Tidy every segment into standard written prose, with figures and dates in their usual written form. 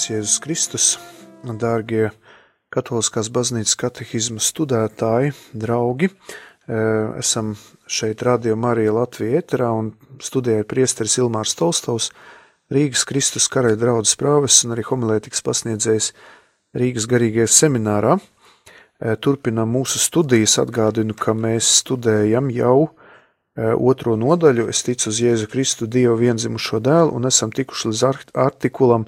Slavēts Jēzus Kristus, dārgie Katoliskās baznīcas katehisma studētāji, draugi. Esam šeit Radio Marija Latvija ēterā un studēja priesteris Ilmārs Tolstovs, Rīgas Kristus karaļa draudzes prāvests un arī homilētikas pasniedzējs Rīgas garīgajā seminārā. Turpinām mūsu studijas, atgādinu, ka mēs studējam jau otro nodaļu, es ticu uz Jēzu Kristu, Dievu vienzimušo dēlu, un esam tikuši līdz artikulam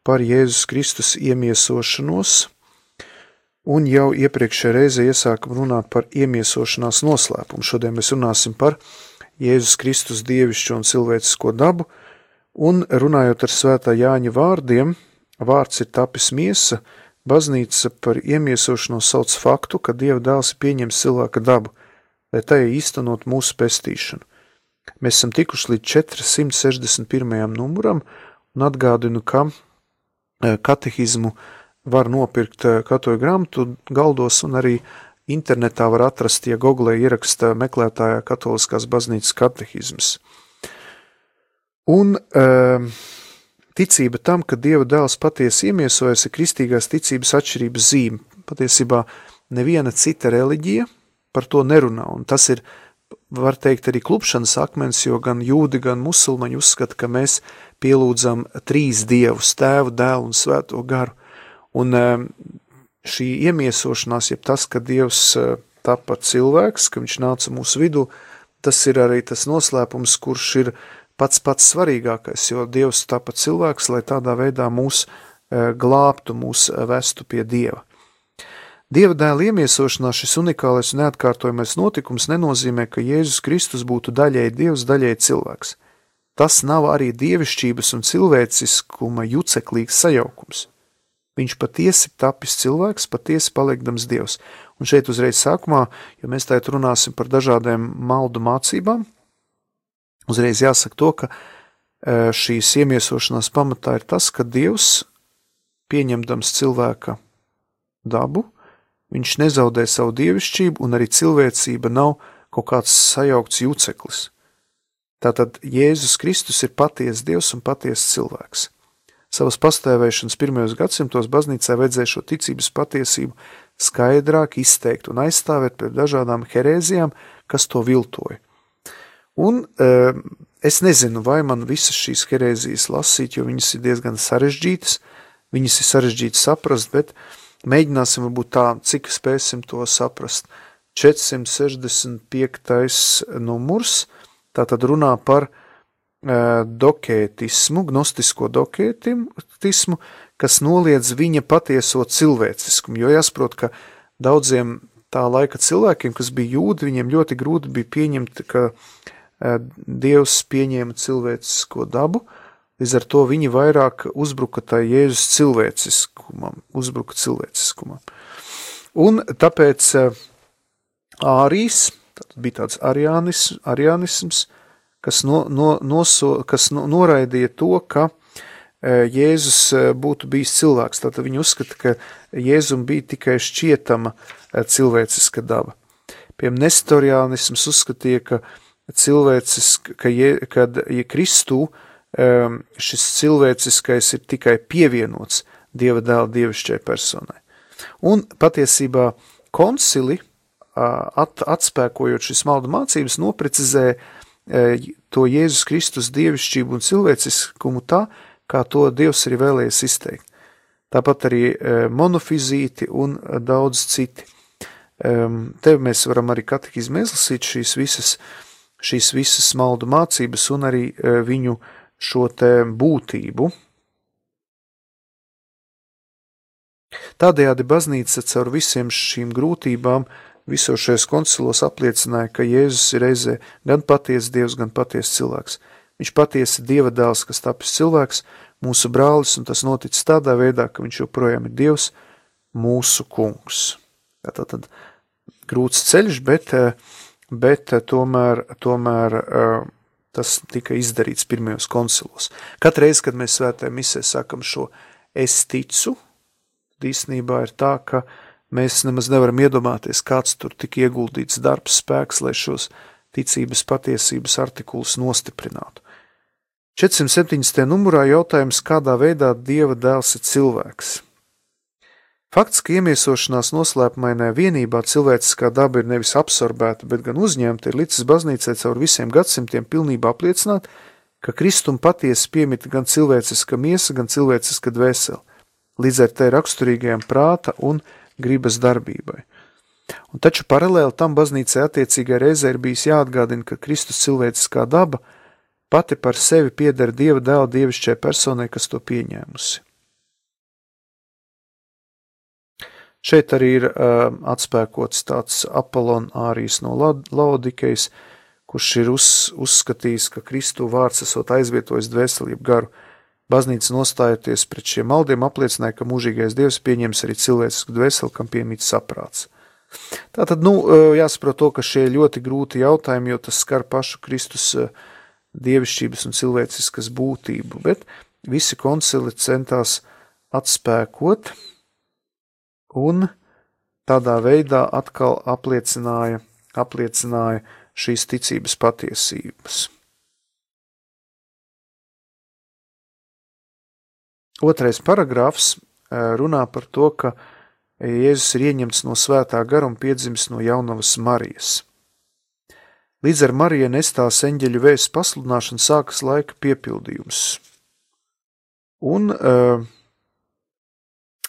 par Jēzus Kristus iemiesošanos, un jau iepriekšējā reize iesākam runāt par iemiesošanās noslēpumu. Šodien mēs runāsim par Jēzus Kristus dievišķo un cilvēcisko dabu, un runājot ar svētā Jāņa vārdiem, vārds ir tapis miesa, baznīca par iemiesošanos sauc faktu, ka Dieva dēls ir pieņems cilvēka dabu, lai tajā īstenot mūsu pestīšanu. Mēs esam tikuši līdz 461. numuram, un atgādinu, ka katehismu var nopirkt katoļu grāmatu galdos, un arī internetā var atrast, ja Google ieraksta meklētājā Katoliskās baznīcas katehisms. Un ticība tam, ka Dieva dēls patiesi iemiesojas, ir kristīgās ticības atšķirības zīme. Patiesībā neviena cita reliģija par to nerunā, un tas ir, var teikt, arī klupšanas akmens, jo gan jūdi, gan musulmaņi uzskata, ka mēs pielūdzam trīs dievus, tēvu, dēlu un svēto garu. Un šī iemiesošanās, jeb tas, ka Dievs tapa cilvēks, ka viņš nāca mūsu vidū, tas ir arī tas noslēpums, kurš ir pats svarīgākais, jo Dievs tapa cilvēks, lai tādā veidā mūs glābtu, mūs vestu pie Dieva. Dieva dēla iemiesošanās šis unikālais un neatkārtojamais notikums nenozīmē, ka Jēzus Kristus būtu daļēji Dievs, daļēji cilvēks. Tas nav arī dievišķības un cilvēciskuma juceklīgs sajaukums. Viņš patiesi tapis cilvēks, patiesi palikdams Dievs. Un šeit uzreiz sākumā, jo mēs tagad runāsim par dažādiem maldu mācībām, uzreiz jāsaka to, ka šīs iemiesošanās pamatā ir tas, ka Dievs, pieņemdams cilvēka dabu, viņš nezaudē savu dievišķību, un arī cilvēcība nav kaut kāds sajaukts juceklis. Tātad Jēzus Kristus ir patiesa Dievs un patiesa cilvēks. Savas pastāvēšanas pirmajos gadsimtos baznīcā vajadzēja šo ticības patiesību skaidrāk izteikt un aizstāvēt pret dažādām herēzijām, kas to viltoja. Un es nezinu, vai man visas šīs herēzijas lasīt, jo viņas ir diezgan sarežģītas, viņas ir sarežģītas saprast, bet mēģināsim varbūt tā, cik spēsim to saprast. 465. numurs, tātad runā par dokētismu, gnostisko dokētismu, kas noliedz viņa patieso cilvēciskumu, jo jāsaprot, ka daudziem tā laika cilvēkiem, kas bija jūdi, viņiem ļoti grūti bija pieņemt, ka Dievs pieņēma cilvēcisko dabu, līdz ar to viņi vairāk uzbruka tā Jēzus cilvēciskumam. Un tāpēc ārijas, tad bija tāds arianisms, kas noraidīja to, ka Jēzus būtu bijis cilvēks. Tātad viņi uzskata, ka Jēzum bija tikai šķietama cilvēciska daba. Piemēram, nestoriānisms uzskatīja, ka kad Kristū šis cilvēciskais ir tikai pievienots Dieva dēla dievišķai personai. Un patiesībā koncili, atspēkojot šis maldu mācības, noprecizēja to Jēzus Kristus dievišķību un cilvēciskumu tā, kā to Dievs arī vēlējies izteikt. Tāpat arī monofizīti un daudz citi. Te mēs varam arī katehizmu izlasīt šīs visas maldu mācības un arī viņu šo te būtību. Tādējādi baznīca caur visiem šīm grūtībām visos šajos koncilos apliecināja, ka Jēzus ir reizē gan patiesa Dievs, gan patiesa cilvēks. Viņš patiesi Dieva dēls, kas tapis cilvēks, mūsu brālis, un tas noticis tādā veidā, ka viņš joprojām ir Dievs, mūsu kungs. Tātad grūts ceļš, bet tomēr tas tika izdarīts pirmajos koncilos. Katreiz, kad mēs svētajā misē sakam šo es ticu, īstenībā ir tā, ka mēs nemaz nevaram iedomāties, kāds tur tika ieguldīts darbs, spēks, lai šos ticības patiesības artikulus nostiprinātu. 470. numurā jautājums, kādā veidā Dieva dēls ir cilvēks. Fakts, ka iemiesošanās noslēpumainā vienībā cilvēciskā daba ir nevis absorbēta, bet gan uzņemta, ir licis baznīcai caur visiem gadsimtiem pilnībā apliecināt, ka Kristum patiesi piemita gan cilvēciska miesa, gan cilvēciska dvēsele, līdz ar te raksturīgajām prāta un gribas darbībai. Un taču paralēli tam baznīcai attiecīgai reizē ir bijis jāatgādina, ka Kristus cilvēciskā daba pati par sevi pieder Dieva dēla dievišķai personai, kas to pieņēmusi. Šeit arī ir atspēkots tāds Apollon Ārijs no Laodikejas, kurš ir uzskatījis, ka Kristu vārds esot aizvietojis dvēseli jeb garu. Baznīca nostājoties pret šiem maldiem apliecināja, ka mūžīgais Dievs pieņems arī cilvēcisku dvēseli, kam piemīt saprāts. Tātad, jāsaprot to, ka šie ļoti grūti jautājumi, jo tas skar pašu Kristus dievišķības un cilvēciskas būtību, bet visi koncili centās atspēkot un tādā veidā atkal apliecināja šīs ticības patiesības. Otrais paragrāfs runā par to, ka Jēzus ir ieņemts no svētā gara un piedzimis no jaunavas Marijas. Līdz ar Mariju nestās eņģeļu vēsts pasludināšanu sākas laika piepildījums. Un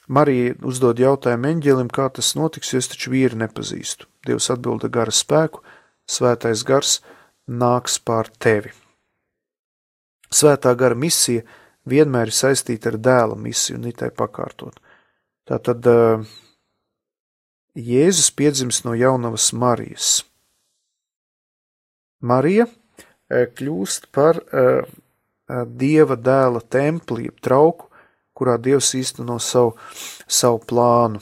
Marija uzdod jautājumu eņģelim, kā tas notiks, jo es taču vīri nepazīstu. Dievs atbilda gara spēku, svētais gars nāks pār tevi. Svētā gara misija vienmēr ir saistīta ar dēla misiju un itai pakārtot. Tātad Jēzus piedzims no jaunavas Marijas. Marija kļūst par Dieva dēla templi, trauku, kurā Dievs īsteno savu plānu.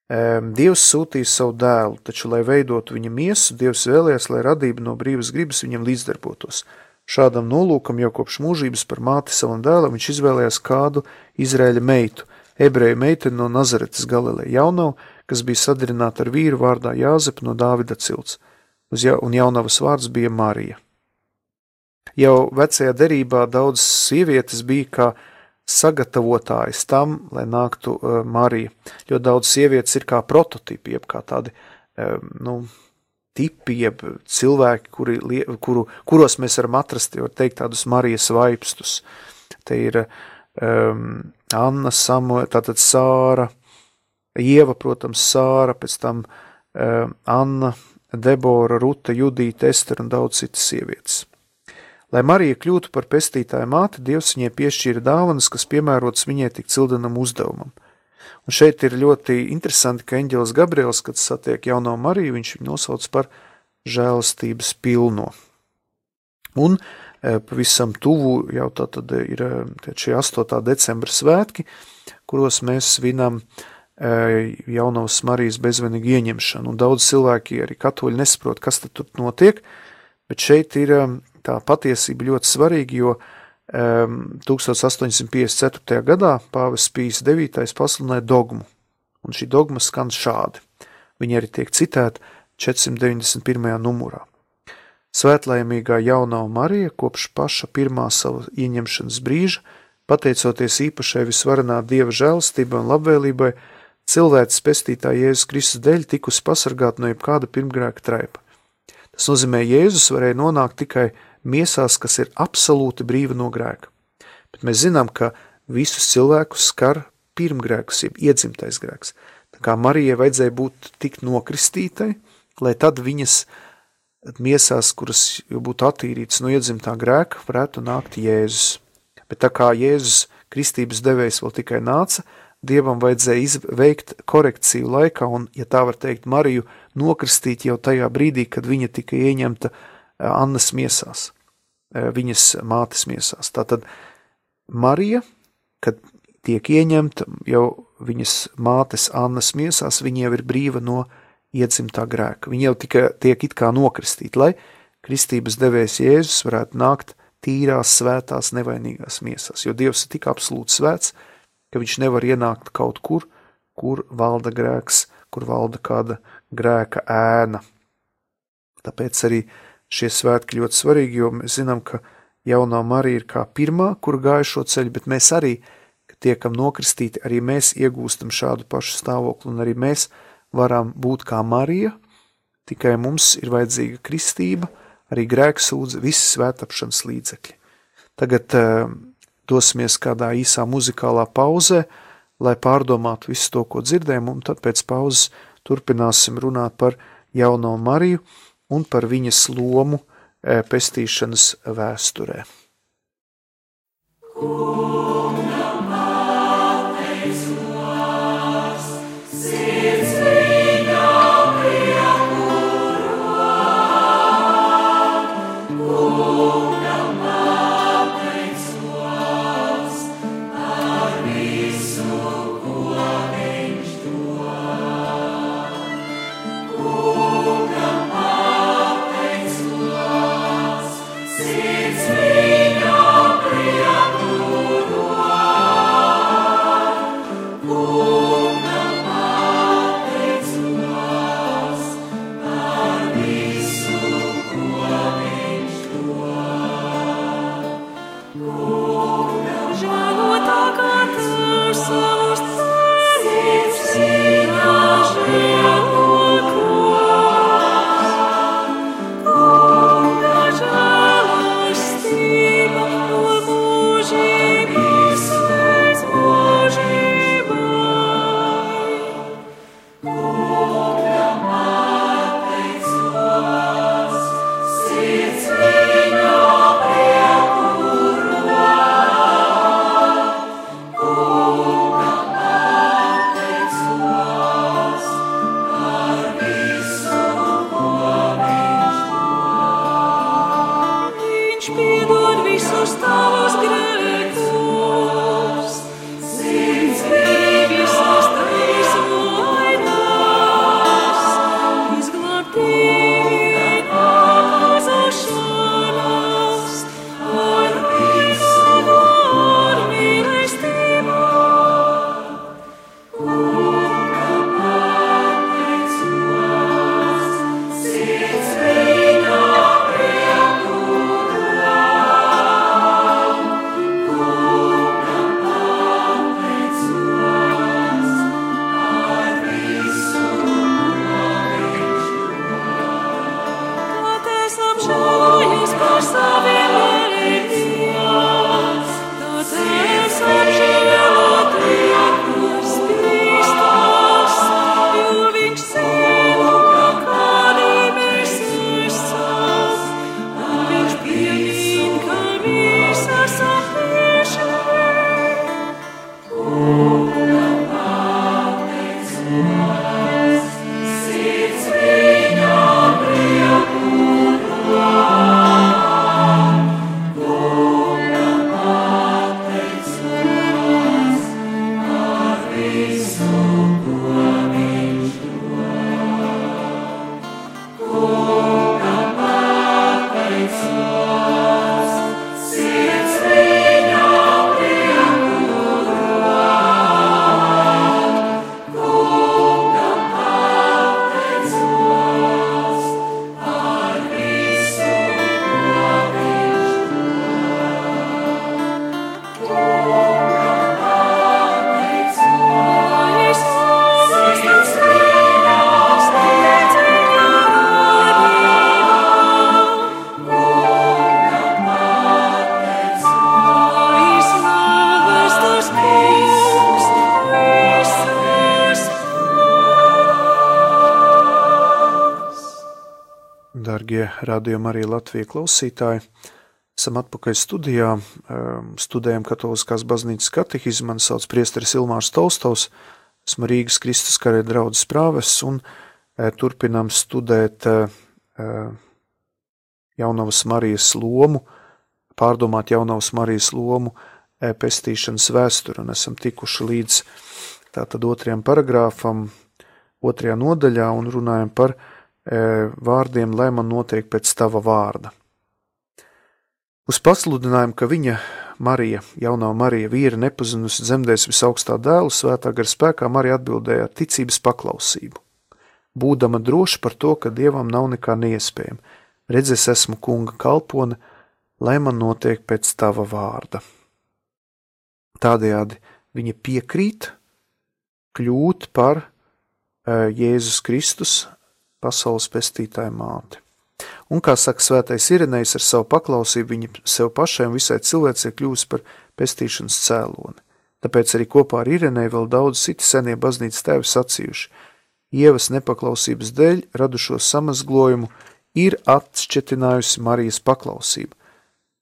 Dievs sūtīja savu dēlu, taču, lai veidotu viņa miesu, Dievs vēlējās, lai radība no brīvas gribas viņam līdzdarbotos. Šādam nolūkam jau kopš mūžības par māti savam dēlam viņš izvēlējās kādu Izraēļa meitu, ebreju meiteni no Nazaretes Galileja jaunavu, kas bija sadarināta ar vīru vārdā Jāzepu no Dāvida cilts, un jaunavas vārds bija Marija. Jau vecajā derībā daudz sievietes bija kā sagatavotājas tam, lai nāktu Marija, jo daudz sievietes ir kā prototipi, jeb kā tādi, tipi, jeb cilvēki, kuros mēs varam atrast, var teikt, tādus Marijas vaipstus. Te ir Anna, Samuela, tātad Sāra, Ieva, protams, Sāra, pēc tam Anna, Debora, Ruta, Judīta, Ester un daudz citas sievietes. Lai Marija kļūtu par pestītāju māti, Dievs viņai piešķīra dāvanas, kas piemērotas viņai tik cildenam uzdevumam. Un šeit ir ļoti interesanti, ka eņģelis Gabriels, kad satiek jauno Mariju, viņš viņu nosauc par žēlastības pilno. Un pavisam tuvu jau tātad ir šie 8. decembra svētki, kuros mēs svinam jaunavas Marijas bezvainīgu ieņemšanu. Un daudz cilvēki, arī katoļi, nesaprot, kas tad tur notiek, bet šeit ir tā patiesība ļoti svarīga, jo 1854. gadā pāvests Pijs IX pasludināja dogmu, un šī dogma skan šādi. Viņa arī tiek citēta 491. numurā. Svētlaimīgā jaunava Marija kopš paša pirmā sava ieņemšanas brīža, pateicoties īpašai visvarenā Dieva žēlastībai un labvēlībai, cilvēces pestītāja Jēzus Kristus dēļ tikusi pasargāt no jebkāda pirmgrēka traipa. Tas nozīmē, Jēzus varēja nonākt tikai miesās, kas ir absolūti brīva no grēka. Bet mēs zinām, ka visus cilvēkus skar pirmgrēkus, jeb iedzimtais grēks. Tā kā Marijai vajadzēja būt tik nokristītai, lai tad viņas miesās, kuras jau būtu attīrītas no iedzimtā grēka, varētu nākt Jēzus. Bet tā kā Jēzus kristības devējs vēl tikai nāca, Dievam vajadzēja veikt korekciju laikā un, ja tā var teikt, Mariju nokristīt jau tajā brīdī, kad viņa tika ieņemta Annas miesās, viņas mātes miesās. Tātad Marija, kad tiek ieņemta jau viņas mātes Annas miesās, viņa jau ir brīva no iedzimtā grēka. Viņa jau tiek it kā nokristīt, lai kristības devējs Jēzus varētu nākt tīrās, svētās, nevainīgās miesās, jo Dievs ir tik absolūti svēts, ka viņš nevar ienākt kaut kur valda grēks, kur valda kāda grēka ēna. Tāpēc arī šie svētki ļoti svarīgi, jo mēs zinām, ka jaunā Marija ir kā pirmā, kur gāja šo ceļu, bet mēs arī, kad tiekam nokristīti, arī mēs iegūstam šādu pašu stāvokli, un arī mēs varam būt kā Marija, tikai mums ir vajadzīga kristība, arī grēksūdze, visi svētapšanas līdzekļi. Tagad dosimies kādā īsā muzikālā pauzē, lai pārdomātu visu to, ko dzirdējam, un tad pēc pauzes turpināsim runāt par jauno Mariju un par viņas lomu pestīšanas vēsturē. Dargie radījuma arī Latvija klausītāji, esam atpakaļ studijā, studējam Katoliskās baznīcas katehismu, mani sauc priesteris Ilmārs Tolstovs, esmu Rīgas Kristus Karaļa draudzes prāvests un turpinām studēt Jaunavas Marijas lomu, pārdomāt Jaunavas Marijas lomu pestīšanas vēsturi, un esam tikuši līdz tātad 2. paragrāfam, 2. nodaļā un runājam par vārdiem, lai man notiek pēc tava vārda. Uz pasludinājumu, ka viņa Marija, jaunā Marija, vīra nepazinusi dzemdēs visaugstā dēlu, svētā gara spēkā Marija atbildēja ar ticības paklausību. Būdama droša par to, ka Dievam nav nekā neiespējama. Redz, es esmu kunga kalpone, lai man notiek pēc tava vārda. Tādējādi viņa piekrīt kļūt par Jēzus Kristus pasaules pestītāja māti. Un, kā saka svētais Irenejs, ar savu paklausību viņa sev pašai un visai cilvēcei kļūst par pestīšanas cēloni. Tāpēc arī kopā ar Ireneju vēl daudz citi senie baznīcas tēvi sacījuši: Ievas nepaklausības dēļ radušo samazglojumu ir atšķetinājusi Marijas paklausība.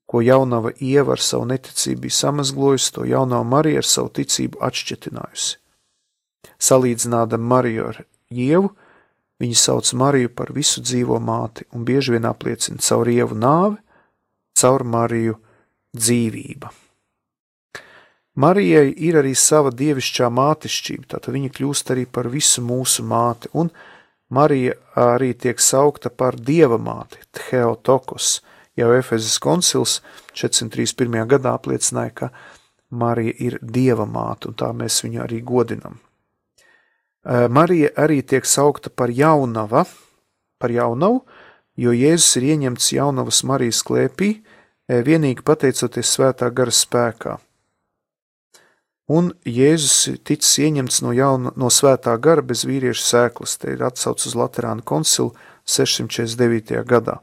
Ko jaunava Ieva ar savu neticību bija samazglojusi, to jaunava Marija ar savu ticību atšķetinājusi. Salīdzinādam Mariju ar Ievu, viņa sauc Mariju par visu dzīvo māti un bieži vien apliecina caur Ievu nāvi, caur Mariju dzīvība. Marijai ir arī sava dievišķā mātišķība, tātad viņa kļūst arī par visu mūsu māti, un Marija arī tiek saukta par dieva māti, Theotokos. Jau Efezes koncils 431. gadā apliecināja, ka Marija ir dieva māte, un tā mēs viņu arī godinam. Marija arī tiek saukta par jaunavu, jo Jēzus ir ieņemts jaunavas Marijas klēpī, vienīgi pateicoties svētā gara spēkā. Un Jēzus ticis ieņemts no svētā gara bez vīrieša sēklas, te ir atsauc uz Laterāna koncilu 649. gadā.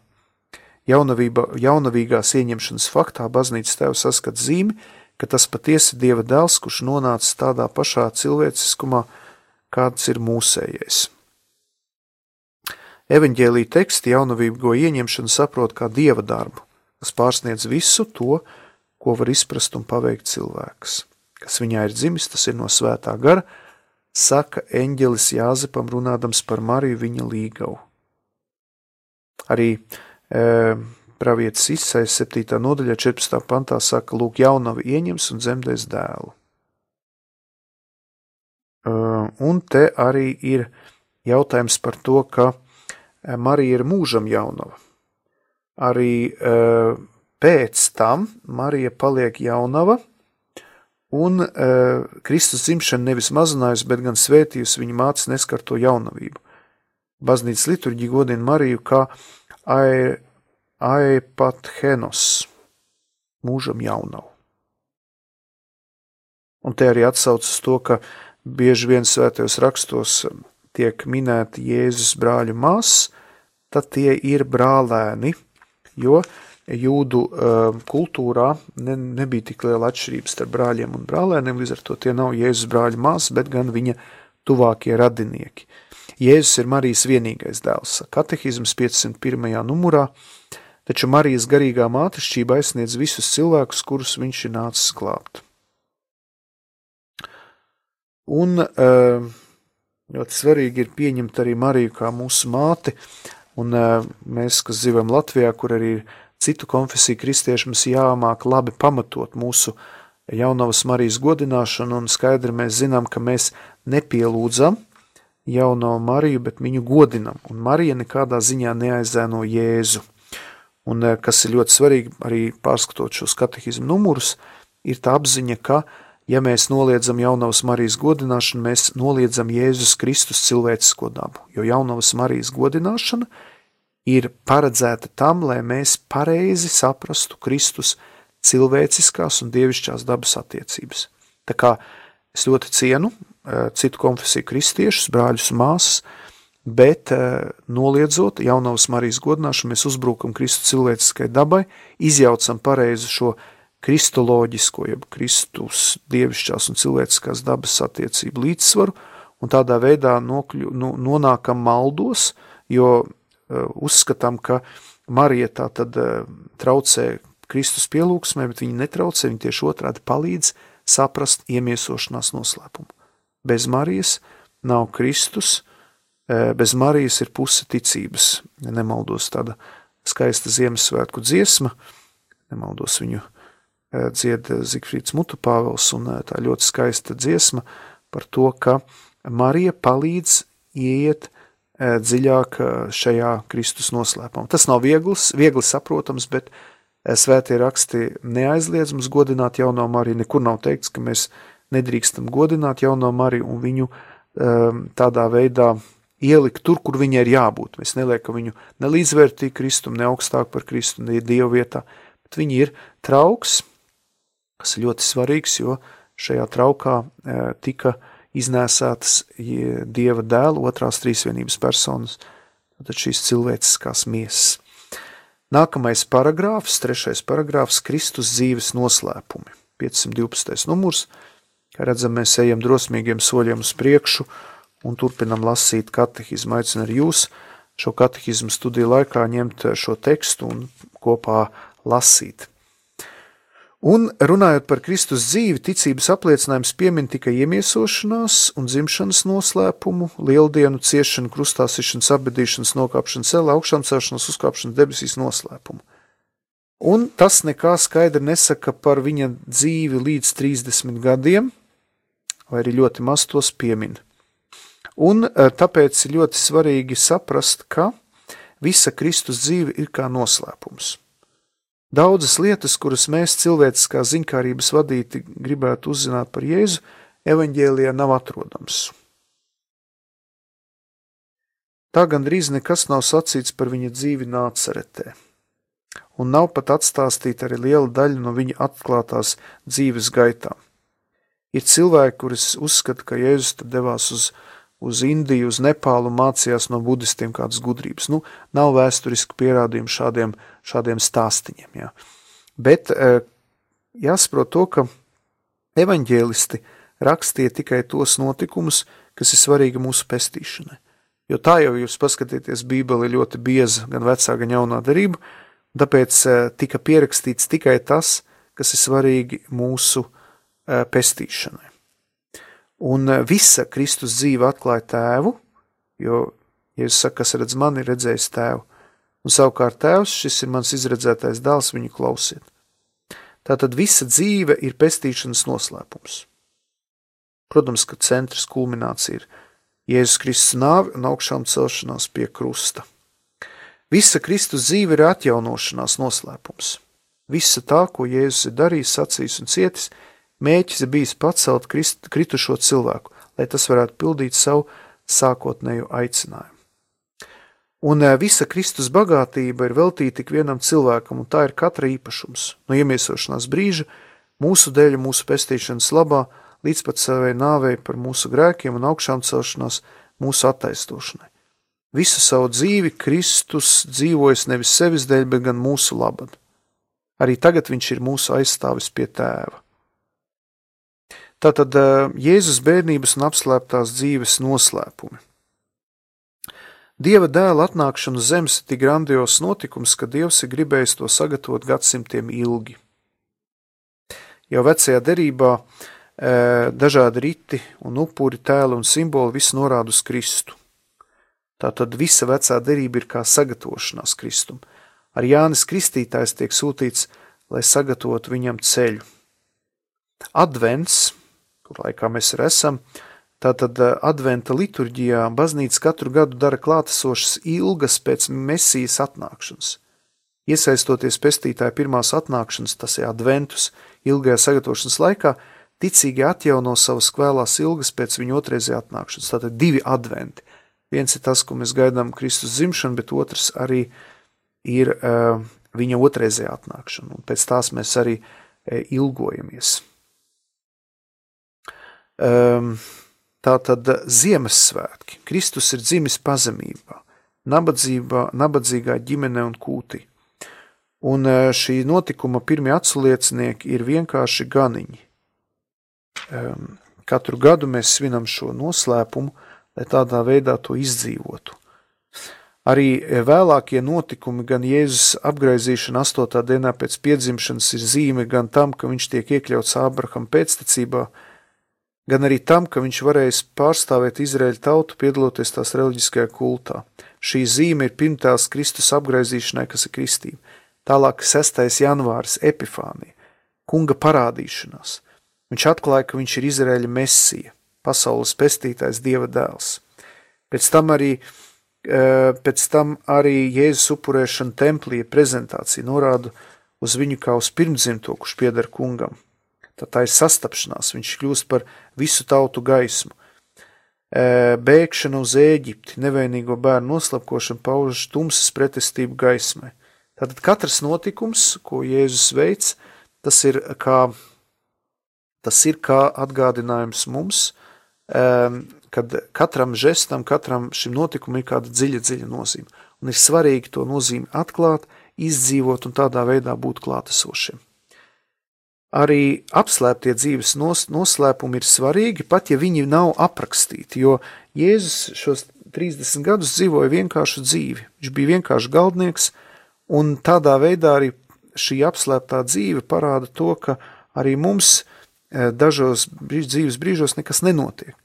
Jaunavīgās ieņemšanas faktā baznīcas tēvs saskat zīmi, ka tas patiesi Dieva dēls, kurš nonācis tādā pašā cilvēciskumā, kāds ir mūsējais. Evaņģēlija teksti jaunavīgo ieņemšanu saprot kā Dieva darbu, kas pārsniedz visu to, ko var izprast un paveikt cilvēks. Kas viņā ir dzimis, tas ir no svētā gara, saka eņģelis Jāzepam runādams par Mariju viņa līgavu. Arī pravietis Isaijas 7. nodaļā 14. pantā saka, lūk, jaunava ieņems un dzemdēs dēlu. Un te arī ir jautājums par to, ka Marija ir mūžam jaunava. Arī pēc tam Marija paliek jaunava, un Kristus dzimšana nevis mazinājusi, bet gan svētījusi viņa mātes neskarto jaunavību. Baznīcas liturģija godina Mariju kā aepathenos, mūžam jaunavu. Un te arī atsauc uz to, ka bieži vien svētajos rakstos tiek minēti Jēzus brāļu māsas, tad tie ir brālēni, jo jūdu kultūrā nebija tik liela atšķirības starp brāļiem un brālēniem, līdz ar to tie nav Jēzus brāļu māsas, bet gan viņa tuvākie radinieki. Jēzus ir Marijas vienīgais dēls, katehizms 501. numurā, taču Marijas garīgā mātešķība aizsniedz visus cilvēkus, kurus viņš ir nācis glābt. Un ļoti svarīgi ir pieņemt arī Mariju kā mūsu māti, un mēs, kas dzīvojam Latvijā, kur arī ir citu konfesiju kristieši, mums jāmāk labi pamatot mūsu jaunavas Marijas godināšanu, un skaidri mēs zinām, ka mēs nepielūdzam jauno Mariju, bet viņu godinam, un Marija nekādā ziņā neaizēno Jēzu. Un kas ir ļoti svarīgi, arī pārskatot šos katehizmu numurus, ir tā apziņa, ka, ja mēs noliedzam jaunavas Marijas godināšanu, mēs noliedzam Jēzus Kristus cilvēcisko dabu, jo jaunavas Marijas godināšana ir paredzēta tam, lai mēs pareizi saprastu Kristus cilvēciskās un dievišķās dabas attiecības. Tā kā es ļoti cienu citu konfesiju kristiešus, brāļus un māsas, bet noliedzot jaunavas Marijas godināšanu, mēs uzbrukam Kristu cilvēciskai dabai, izjaucam pareizi šo kristoloģisko, jeb Kristus dievišķās un cilvēciskās dabas attiecību līdzsvaru, un tādā veidā nonākam maldos, jo uzskatām, ka Marija tā tad traucē Kristus pielūgsmē, bet viņa netraucē, viņa tieši otrādi palīdz saprast iemiesošanās noslēpumu. Bez Marijas nav Kristus, bez Marijas ir puse ticības. Nemaldos tāda skaista Ziemassvētku dziesma, nemaldos viņu dzied Zigfrīds Mutupāvels, un tā ļoti skaista dziesma par to, ka Marija palīdz ieiet dziļāk šajā Kristus noslēpumā. Tas nav viegli saprotams, bet svētie raksti neaizliedz mums godināt jauno Mariju. Nekur nav teikts, ka mēs nedrīkstam godināt jauno Mariju un viņu tādā veidā ielikt tur, kur viņai ir jābūt. Mēs neliekam viņu ne līdzvērtīgi Kristum, ne augstāk par Kristu, ne Dievu vietā. Viņi ir trauks, kas ir ļoti svarīgs, jo šajā traukā tika iznēsātas Dieva dēla otrās trīsvienības personas, tad šīs cilvēciskās miesas. Nākamais paragrāfs, 3. paragrāfs, Kristus dzīves noslēpumi, 512. numurs. Kā redzam, mēs ejam drosmīgiem soļiem uz priekšu un turpinam lasīt katehizmu. Aicinu arī jūs šo katehizmu studiju laikā ņemt šo tekstu un kopā lasīt. Un runājot par Kristus dzīvi, ticības apliecinājums piemin tikai iemiesošanās un dzimšanas noslēpumu, lieldienu, ciešanu, krustā sišanas, apbedīšanas, nokāpšanas celē, augšām celšanas, uzkāpšanas debesīs noslēpumu. Un tas nekā skaidri nesaka par viņa dzīvi līdz 30 gadiem, vai arī ļoti maz tos piemin. Un tāpēc ir ļoti svarīgi saprast, ka visa Kristus dzīve ir kā noslēpums. Daudzas lietas, kuras mēs cilvēciskā ziņkārības vadīti gribētu uzzināt par Jēzu, evaņģēlijā nav atrodams. Tā gandrīz nekas nav sacīts par viņa dzīvi Nācaretē, un nav pat atstāstīta arī liela daļa no viņa atklātās dzīves gaitām. Ir cilvēki, kuris uzskata, ka Jēzus tad devās uz Indiju, uz Nepālu un mācījās no budistiem kādas gudrības. Nav vēsturiski pierādījumi šādiem stāstiņiem. Jā. Bet jāsaprot to, ka evaņģēlisti rakstīja tikai tos notikumus, kas ir svarīgi mūsu pestīšanai. Jo tā jau jūs paskatieties, Bībele ir ļoti bieza, gan vecā, gan jaunā darība, tāpēc tika pierakstīts tikai tas, kas ir svarīgi mūsu pestīšanai. Un visa Kristus dzīve atklāja tēvu, jo Jēzus saka, kas redz mani, redzējis tēvu. Un savukārt tēvs, šis ir mans izredzētais dēls, viņu klausiet. Tātad visa dzīve ir pestīšanas noslēpums. Protams, ka centrs kulminācija ir Jēzus Kristus nāve un augšām celšanās pie krusta. Visa Kristus dzīve ir atjaunošanās noslēpums. Visa tā, ko Jēzus ir darījis, sacījis un cietis, mēķis ir bijis pacelt kritušo cilvēku, lai tas varētu pildīt savu sākotnējo aicinājumu. Un visa Kristus bagātība ir veltīta tik vienam cilvēkam, un tā ir katra īpašums, no iemiesošanās brīža, mūsu dēļ, mūsu pestīšanas labā, līdz pat savai nāvei par mūsu grēkiem un augšām celšanās mūsu attaisnošanai. Visu savu dzīvi Kristus dzīvojas nevis sevis dēļ, bet gan mūsu labad. Arī tagad viņš ir mūsu aizstāvis pie tēva. Tātad Jēzus bērnības un apslēptās dzīves noslēpumi. Dieva dēla atnākšana uz zemes ir tik grandios notikums, ka Dievs ir gribējis to sagatavot gadsimtiem ilgi. Jau vecajā derībā dažādi riti un upuri, tēli un simboli viss norāda uz Kristu. Tātad visa vecā derība ir kā sagatavošanās Kristum. Ar Jānis Kristītājs tiek sūtīts, lai sagatavotu viņam ceļu. Advents, kur laikā mēs arī esam, tātad adventa liturģijā baznīca katru gadu dara klātesošas ilgas pēc Mesijas atnākšanas. Iesaistoties pestītāja pirmās atnākšanas, tas ir adventus, ilgajā sagatavošanas laikā, ticīgi atjauno savas kvēlās ilgas pēc viņa otrreizējā atnākšanas. Tātad 2 adventi. Viens ir tas, ko mēs gaidām Kristus dzimšanu, bet otrs arī ir viņa otrreizējā atnākšana, un pēc tās mēs arī ilgojamies. Tātad Ziemassvētki. Kristus ir dzimis pazemībā, nabadzīgā ģimene un kūtī. Un šī notikuma pirmie atsliecinieki ir vienkārši ganiņi. Katru gadu mēs svinam šo noslēpumu, lai tādā veidā to izdzīvotu. Arī vēlākie notikumi, gan Jēzus apgraizīšana 8. dienā pēc piedzimšanas ir zīme gan tam, ka viņš tiek iekļauts Ābrahama pēctecībā, gan arī tam, ka viņš varēs pārstāvēt Izraēļa tautu, piedaloties tās reliģiskajā kultā. Šī zīme ir pirmtēls Kristus apgraizīšanai, kas ir kristība. Tālāk 6. janvāris, Epifānija, kunga parādīšanās. Viņš atklāja, ka viņš ir Izraēļa Mesija, pasaules pestītājs, Dieva dēls. Pēc tam arī Jēzus upurēšana templī prezentācija norāda uz viņu kā uz pirmdzimto, kurš pieder kungam. Tā ir sastapšanās, viņš kļūst par visu tautu gaismu. Bēgšana uz Ēģipti, nevainīgo bērnu noslapkošana pauž tumsas pretestību gaismai. Tātad katrs notikums, ko Jēzus veic, tas ir kā atgādinājums mums, kad katram žestam, katram šim notikumam ir kāda dziļa nozīme. Un ir svarīgi to nozīmi atklāt, izdzīvot un tādā veidā būt klātesošiem. Arī apslēptie dzīves noslēpumi ir svarīgi, pat ja viņi nav aprakstīti, jo Jēzus šos 30 gadus dzīvoja vienkāršu dzīvi. Viņš bija vienkārši galdnieks, un tādā veidā arī šī apslēptā dzīve parāda to, ka arī mums dažos dzīves brīžos nekas nenotiek.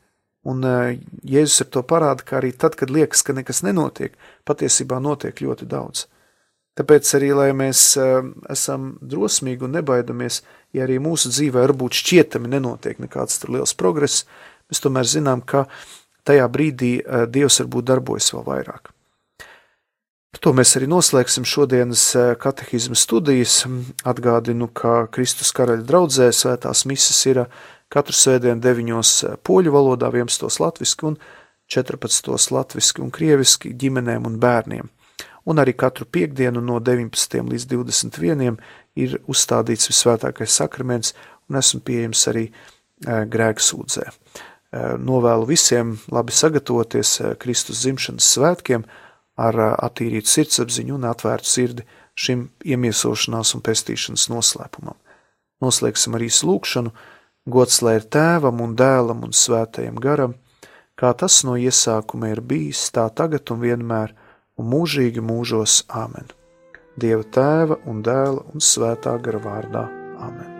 Un Jēzus ar to parāda, ka arī tad, kad liekas, ka nekas nenotiek, patiesībā notiek ļoti daudz. Tāpēc arī, lai mēs esam drosmīgi un nebaidamies, ja arī mūsu dzīvē varbūt šķietami nenotiek nekāds liels progress, mēs tomēr zinām, ka tajā brīdī Dievs varbūt darbojas vēl vairāk. Par to mēs arī noslēgsim šodienas katehizma studijas. Atgādinu, ka Kristus karaļa draudzē svētās mises ir katru svētdienu 9 poļu valodā, 11 latviski un 14 latviski un krieviski ģimenēm un bērniem. Un arī katru piekdienu no 19 līdz 21 ir uzstādīts visvētākais sakraments un esmu pieejams arī grēksūdzē. Novēlu visiem labi sagatavoties Kristus dzimšanas svētkiem ar attīrītu sirdsapziņu un atvērtu sirdi šim iemiesošanās un pestīšanas noslēpumam. Noslēgsim arī lūgšanu, gods lai ir Tēvam un Dēlam un Svētajam garam, kā tas no iesākuma ir bijis, tā tagad un vienmēr, un mūžīgi mūžos. Āmen. Dieva Tēva un Dēla un Svētā gara vārdā. Āmen.